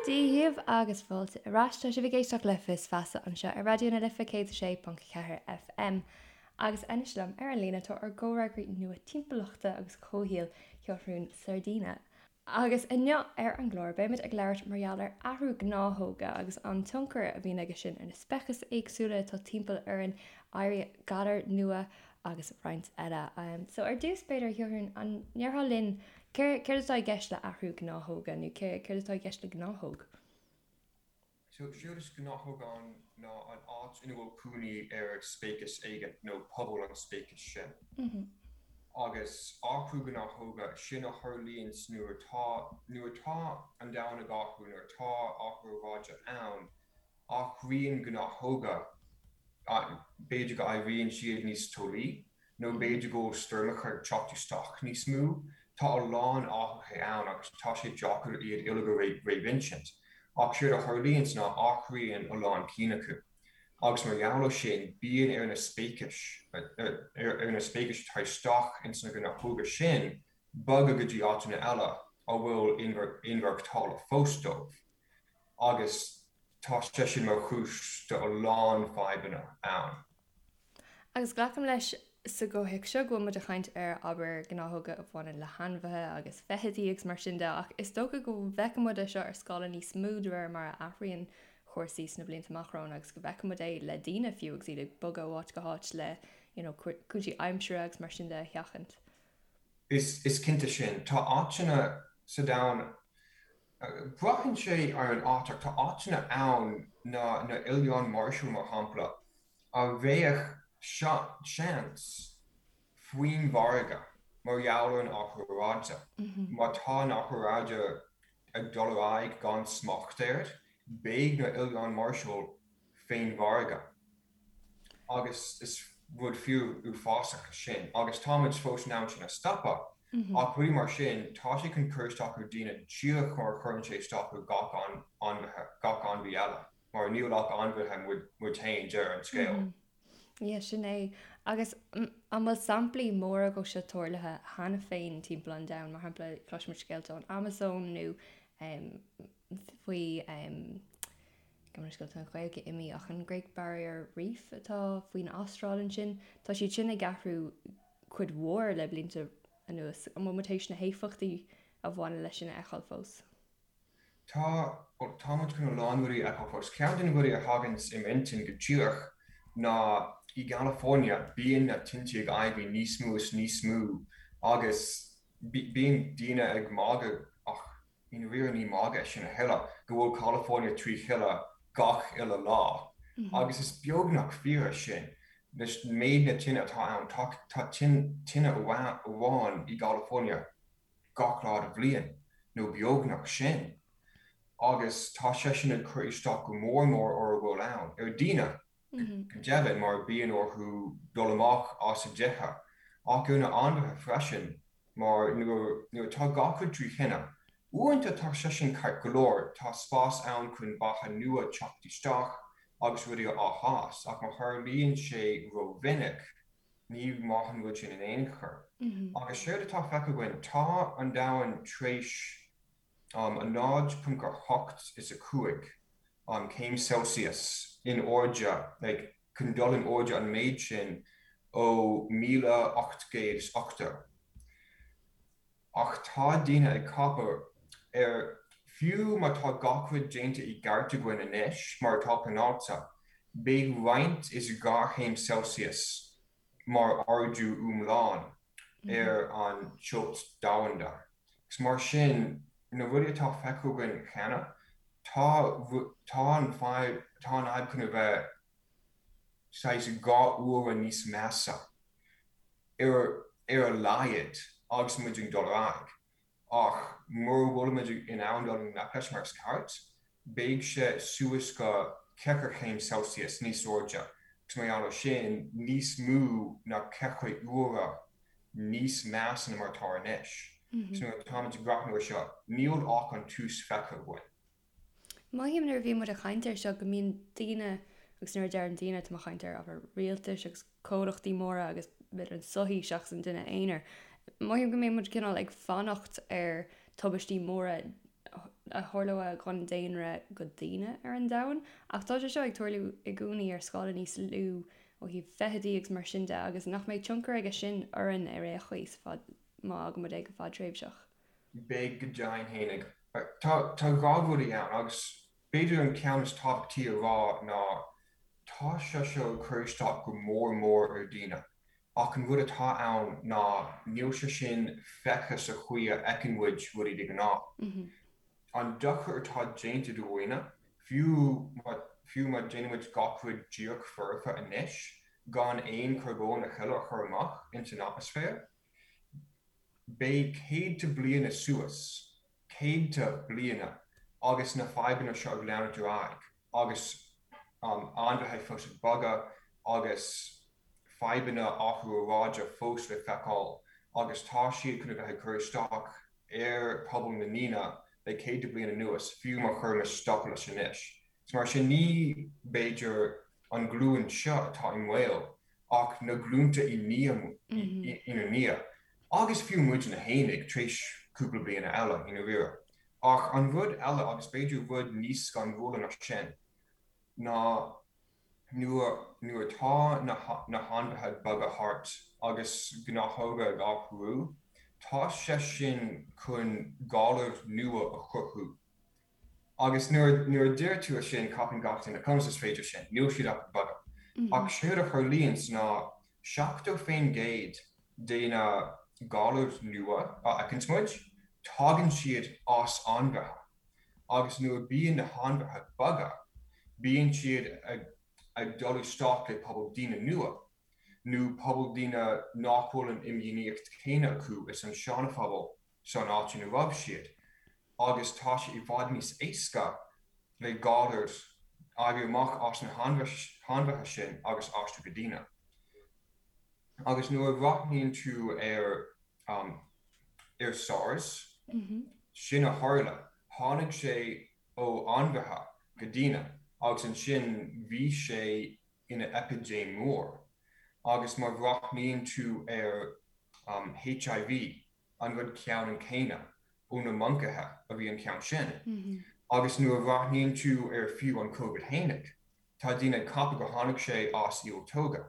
Dia dhaoibh agus fáilte ar ais. Tá sibh ag éisteacht le Fios Feasa anseo ar Raidió na Life 106.4 FM. Agus anois liom ar an líne tá ár gcomhfhreagraí nua timpeallachta agus comhshaoil, Seathrún Sardina. Agus inniu ar an gclár beimid ag labhairt mar gheall ar athrú gnáthóga agus an tionchar a bhíonn aige sin ar na speicis éagsúla atá timpeall orainn, éirí galar nua agus roinnt eile. So ar dtús b'fhéidir, a Sheathrúin, an ndéarfá linn céard atá i gceist le athrú gnáthóga nó céard atá i gceist le gnáthóg? So, séard is gnáthóg ann ná an áit ina bhfuil cónaí ar speiceas éigin nó pobal an speicis sin. Agus athrú gnáthóga, sin a tharlaíonns nuair atá, nuair atá an domhan ag athrú, nuair atá athrú aeráide ann, athraíonn gnáthóga, b'fhéidir go éiríonn siad níos teolaí nó b'fhéidir go bhfuil stoirmeacha ag teacht isteach níos mó. Tá a lán athruithe ann agus tá sé deacair iad uilig a réamhinsint. Ach séard a tharlaíonns ná athraíonn a lán cinn acu. Agus mar gheall ar sin, bíonn ar na speicis, ar na speicis atá isteach ins na gnáthóga sin bogadh go dtí áiteanna eile a bhfuil inmhaireachtála fós dóibh. Agus tá sé sin mar chúis do a lán fadhbanna ann. Agus glacaim leis sa gcomhthéacs seo go bhfuil muid ag caint ar, abair, gnáthóga a bhaineann le hainmhithe agus feithidí agus mar sin de, ach is dócha go bhfeicfidh muid é seo ar scála níos mó de réir mar a athraíonn cúrsaí sna blianta amach romhainn agus go bhfeicfidh muid é le daoine fiú agus iad ag bogadh ó áit go háit le you know cúinsí aimsire agus mar sin de a sheachaint. Is cinnte sin. Tá áiteanna sa domhan Braitheann sé ar an áit ach tá áiteanna ann, na na Oileáin Marshall mar shampla, a bheadh seans faoin bhfarraige mar gheall ar an athrú aeráide. Má tá an athrú aeráide ag dul ar aghaidh gan smacht air, beidh na Oileáin Marshall fén bhfarraige. Agus is rud fíor uafásach é sin. Agus táimid fós in ann sin a stopadh. Ach rudaí mar sin, tá sé chun cur isteach ar daoine díreach mar a chuireann sé isteach ar gach ainmhithe, gach ainmhí eile. Mar níl ach ainmhithe muid, muid féin, deireadh an scéil. Yeah, sin é. Agus an bhfuil samplaí móra dhó seo tarlaithe cheana féin timpeall an domhain? Mar shampla, cloisimid scéalta ón Amazon nó faoi Gabh mo leithscéal, tá an Ghaeilge imithe ach an Great Barrier Reef atá faoin Astráil ansin, tá siad sin ag athrú cuid mhór le blianta anuas. An bhfuil muid théis na héifeachtaí a bhaineann leis sin a fheiceáil fós? Tá, bhuel, tá muid chun a lán rudaí a fheiceáil fós. Ceann de na rudaí a thaganns i m'intinn go díreach ná i gCalifornia bíonn na tinte ag éirí níos mó is níos mó agus bíonn daoine ag magadh ach I ndáiríre ní magadh é sin a thuilleadh, go bhfuil California trí thine gach uile lá. Agus is beagnach fíor é sin. Leis méid na tine atá ann, tá tine amháin i gCalifornia gach lá de bhliain, nó beagnach sin. Agus tá sé sin ag cur isteach go mór mór ar a bhfuil ann, ar daoine, go deimhin, mar bíonn orthu dul amach as a dtithe, ach ar na ainmhithe freisin. Mar nuair atá gach rud trí thine, uaireanta tá sé sin ceart go leor, tá spás ann chun beatha nua teacht isteach agus rudaí á fhás, ach má tharlaíonn sé ró-mhinic, ní maith an rud sin in aon chor. Agus séard atá feicthe againn, tá an domhan tar éis 0.8 is 5 céim Celsius in airde, like, chun dul in airde an méid sin ó 1880. Ach tá daoine ag ceapadh ar, fiú má tá gach rud déanta i gceart againn anois, mar atá pleanáilte, beidh roinnt is 2 chéim Celsius mar ardú iomlán ar an teocht domhanda. Agus mar sin, na rudaí atá feicthe againn cheana, tá tá an fadhb tá an fhadhb chun a bheith saghas 2 uaire níos measa ar ar a laghad agus muid ag dul ar aghaidh. Ach mura bhfuilimid in ann dul i ngleic leis mar is ceart, beidh sé suas go 4 chéim Celsius níos airde agus mar gheall ar sin, níos mó ná 4 uaire níos measa ná mar atá anois. So nuair atáimid ag breathnú ar seo, níl ach an tús feicthe againn. Mothaím nuair a bhíonn muid ag caint air seo go mbíonn daoine, agus nuair a deirim daoine tá mé ag caint ar ábhar rialtais agus comhlachtaí móra agus b'fhéidir an sochaí seachas an duine aonair, mothaím go mbíonn muid cineál ag fanacht ar tubaistí móra. a tharlódh don daonra go daoine ar an domhan, ach tá sé seo ag tarlú i gcónaí ar scála níos lú ó thaobh feithidí agus mar sin de, agus nach mbeidh tionchar aige sin orainn ar aon chaoi sa fad, má fhágann muid é go fadtréimhseach. Beidh go deimhin fhéinig. Tá tá rudaí ann agus b'fhéidir an ceann is tábhachtaí a rá ná tá sé seo ag cur isteach go mór mór ar daoine. Ach an rud atá ann ná níl sé sin feicthe sa chaoi a fheiceann muid rudaí de ghnáth. An dochar atá déanta do dhaoine, fiú má fiú má déanann muid gach rud díreach foirfe anois, gan aon charbón a thuilleadh a chur amach ins an atmaisféar, beidh céadta bliana suas, céadta bliana, agus na fadhbanna seo ag leanúint ar aghaidh agus ainmhithe fós ag bogadh agus fadhbanna athrú aeráide fós le feiceáil agus tá siad chun a bheith ag cur isteach ar pobal na ndaoine le céadta bliain anuas, fiú má chuirimis stop leis anois. Is mar sin ní, b'fhéidir, an ghlúin seo atá i mbaol ach na glúnta i ndiaidh, ina ndiaidh, agus fiú muidne fhéinig tar éis cúpla bliana eile, i ndáiríre. Ach an rud eile, agus b'fhéidir rud níos scanrúla ná sin, ná nuair nuair atá na na hainmhithe ag bogadh thart agus gnáthóga ag athrú, tá sé sin chun galair nua a chruthú. Agus nuair nuair a deir tú é sin, ceapann gach duine, conas is féidir sin? Níl siad ach ag bogadh. Ach séard a tharlaíonns ná 70% de na galair nua a fheiceanns muid, tagann siad as ainmhithe. Agus nuair a bíonn na hainmhithe ag bogadh, bíonn siad ag dul isteach le pobal daoine nua, nó pobal daoine nach bhfuil an imdhíonaíocht chéanna acu is an seanphobal san áit ina raibh siad, agus tá sé i bhfad níos éasca le galair éirí amach as na hainmhithe sin agus aistriú go daoine. Agus nuair a bhreathnaíonn tú ar ar SARS, sin a tharla, tháinig sé ó ainmhithe go daoine agus ansin bhí sé ina eipidéim mór. Agus má bhreathnaíonn tú ar HIV, an rud ceannann céanna, ó na moncaithe a bhí an ceann sin. Agus nuair a bhreathnaíonn tú ar fiú an Covid fhéinig, tá daoine ag ceapadh gur tháinig sé as ialtóga.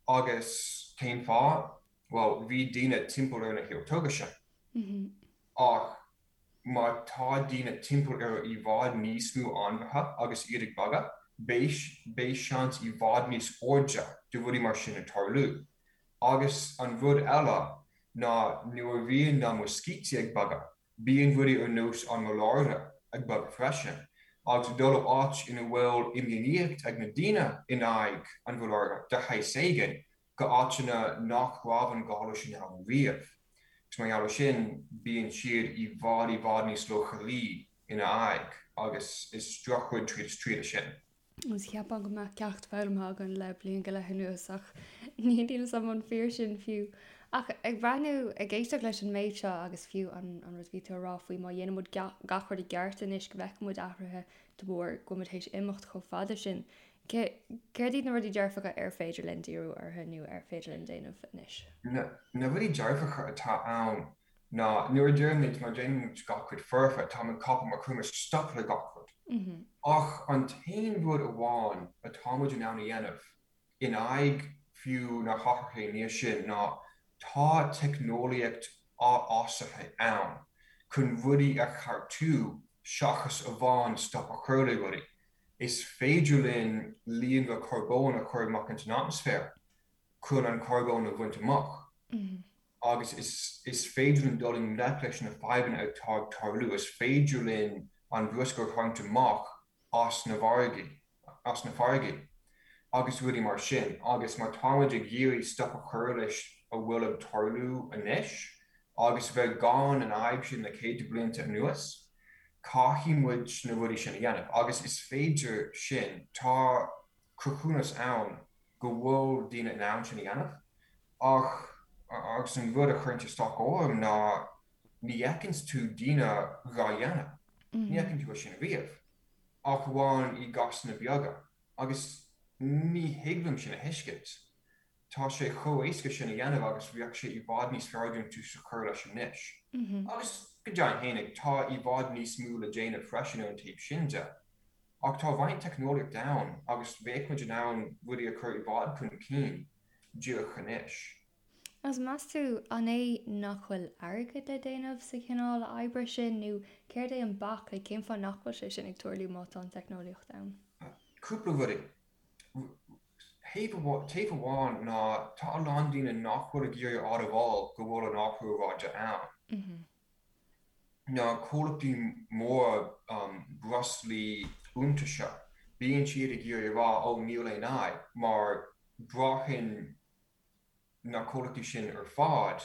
Agus cén fáth? Bhuel, bhí daoine timpeall ar na hialtóga sin. Ach má tá daoine timpeall ar i bhfad níos mó ainmhithe agus iad ag bogadh, beidh beidh seans i bhfad níos airde de rudaí mar sin ag tarlú. Agus an rud eile ná nuair a bhíonn na muiscítí ag bogadh, bíonn rudaí ar nós an maláire ag bogadh freisin, agus ag dul ó áit ina bhfuil imdhíonaíocht ag na daoine in aghaidh an mhaláire de shaghas éigin go áiteanna nach raibh an galar sin ann riamh. Agus mar gheall ar sin, bíonn siad i bhfad i bhfad níos leochailí ina aghaidh agus is drochrud tríd is tríd é sin. Agus cheapfá go mbeadh ceacht foghlamtha againn le bliain go leith anuas ach níl a fhios agam an fíor sin fiú. Ach ag breathnú, ag éisteacht leis an méid seo agus fiú an rud a bhí tú a rá faoi má dhéanann muid gach rud i gceart anois go bhfeicfidh muid athruithe de bharr go bhfuil muid théis imeacht chomh fada sin. Céard iad na rudaí dearfacha ar féidir linn díriú orthu nó ar féidir linn déanamh anois? Na rudaí dearfacha atá ann ná nuair a deirimid má déanann muid gach rud foirfe, táim ag ceapadh má chuirimid stop le gach rud. Ach an t-aon rud amháin atá muid in ann a dhéanamh in aghaidh fiú na hathruithe nua sin ná tá teicneolaíocht fheabhsaithe ann chun rudaí a cheartú seachas amháin stop a chur le rudaí. Is féidir linn líonra carbóin a chur amach ins an atmaisféar chun an carbón a bhaint amach. Agus is féidir linn dul i ngleic leis na fadhbanna atá ag tarlú, is féidir linn an bruscar a tharraingt amach as na farraigí, as na farraigí, agus rudaí mar sin. Agus má táimid ag iarraidh stop a chur leis a bhfuil ag tarlú anois, agus bheith gan an fhadhb sin le céadta blianta anuas, caithfidh muid na rudaí sin a dhéanamh. Agus is féidir sin. Tá cruthúnas ann go bhfuil daoine in ann sin a dhéanamh ach agus an rud a chuireann isteach orm ná ní fheiceanns tú daoine dhá dhéanamh, ní fheiceann tú é sin riamh ach amháin i gcásanna beaga agus ní thig liom sin a thuiscint. Tá sé chomh éasca sin a dhéanamh agus bheadh sé i bhfad níos fearr dúinn tús a chur leis anois. Agus go deimhin fhéinig, tá i bhfad níos mó le déanamh freisin ar an taobh sin de. Ach tá roinnt teicneolaíocht ann agus bheadh muid in ann rudaí a chur i bhfad chun cinn díreach anois. Agus meas tú, an é nach bhfuil airgead le déanamh sa chineál oibre sin nó céard é an bac, like cén fáth nach bhfuil sé sin ag tarlú má tá an teicneolaíocht ann? Cúpla rudaí. Taobh amháin ná tá a lán daoine nach bhfuil ag iarraidh a admháil go bhfuil an athrú aeráide ann. Na comhlachtaí móra breoslaí iontaise, bíonn siad ag iarraidh a rá 'ó níl aon fhadhb' mar braitheann na comhlachtaí sin ar fad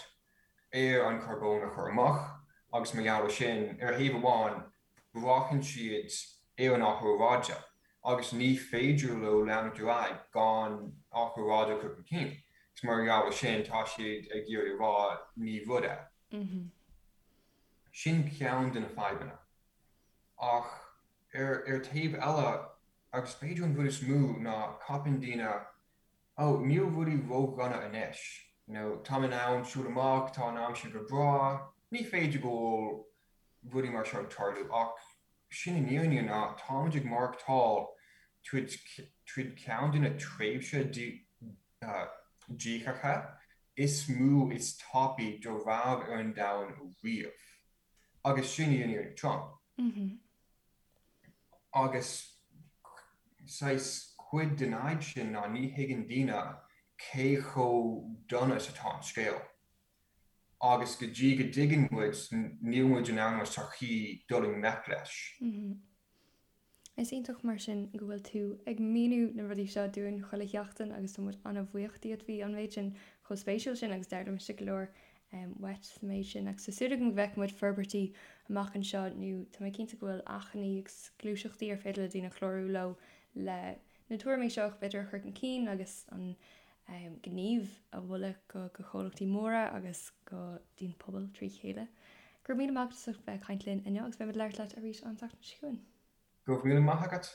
ar an charbón a chur amach agus mar gheall ar sin, ar thaobh amháin, braitheann siad ar an athrú aeráide agus ní féidir leo leanúint ar aghaidh gan athrú aeráide a chur chun cinn agus mar gheall ar sin tá siad ag iarraidh a rá ní rud é. Sin ceann de na fadhbanna. Ach ar taobh eile, agus b'fhéidir an rud is mó, ná ceapann daoine Ó, níl rudaí ródhona anois. You know, táim in ann siúl amach, tá an aimsir go breá, ní féidir go bhfuil rudaí mar seo ag tarlú ach sin an fhírinne ná táimid ag maireachtáil tríd tríd ceann de na tréimhse díothacha is mó is tapaí dá raibh ar an domhan riamh. Agus sin í an fhírinne trom. Agus saghas cuid den fhadhb sin ná ní thuigeann daoine cé chomh dona is atá an scéal. Agus go dtí go dtuigeann muid, níl muid in ann mar sochaí dul i ngleic leis. Is iontach mar sin go bhfuil tú ag míniú na rudaí seo dúinn chuile sheachtain agus tá muid an-bhuíoch díot. Bhí an méid sin chomh spéisiúil sin agus d'fhoghlaim mise go leor uait sa méid sin agus tá súil agam go bhfeicfidh muid forbairtí amach anseo nó tá mé cinnte go bhfuil achainí agus gluaiseachtaí ar féidir le daoine clárú leo le na tuairimí seo b'fhéidir a chur chun cinn agus an gníomh a mholadh go go chomhlachtaí móra agus go dtí an pobal trí chéile. Go raibh míle maith agat as ucht bheith ag caint linn inniu agus beidh muid ag labhairt leat arís an tseachtain seo chugainn. Go raibh míle maith agat.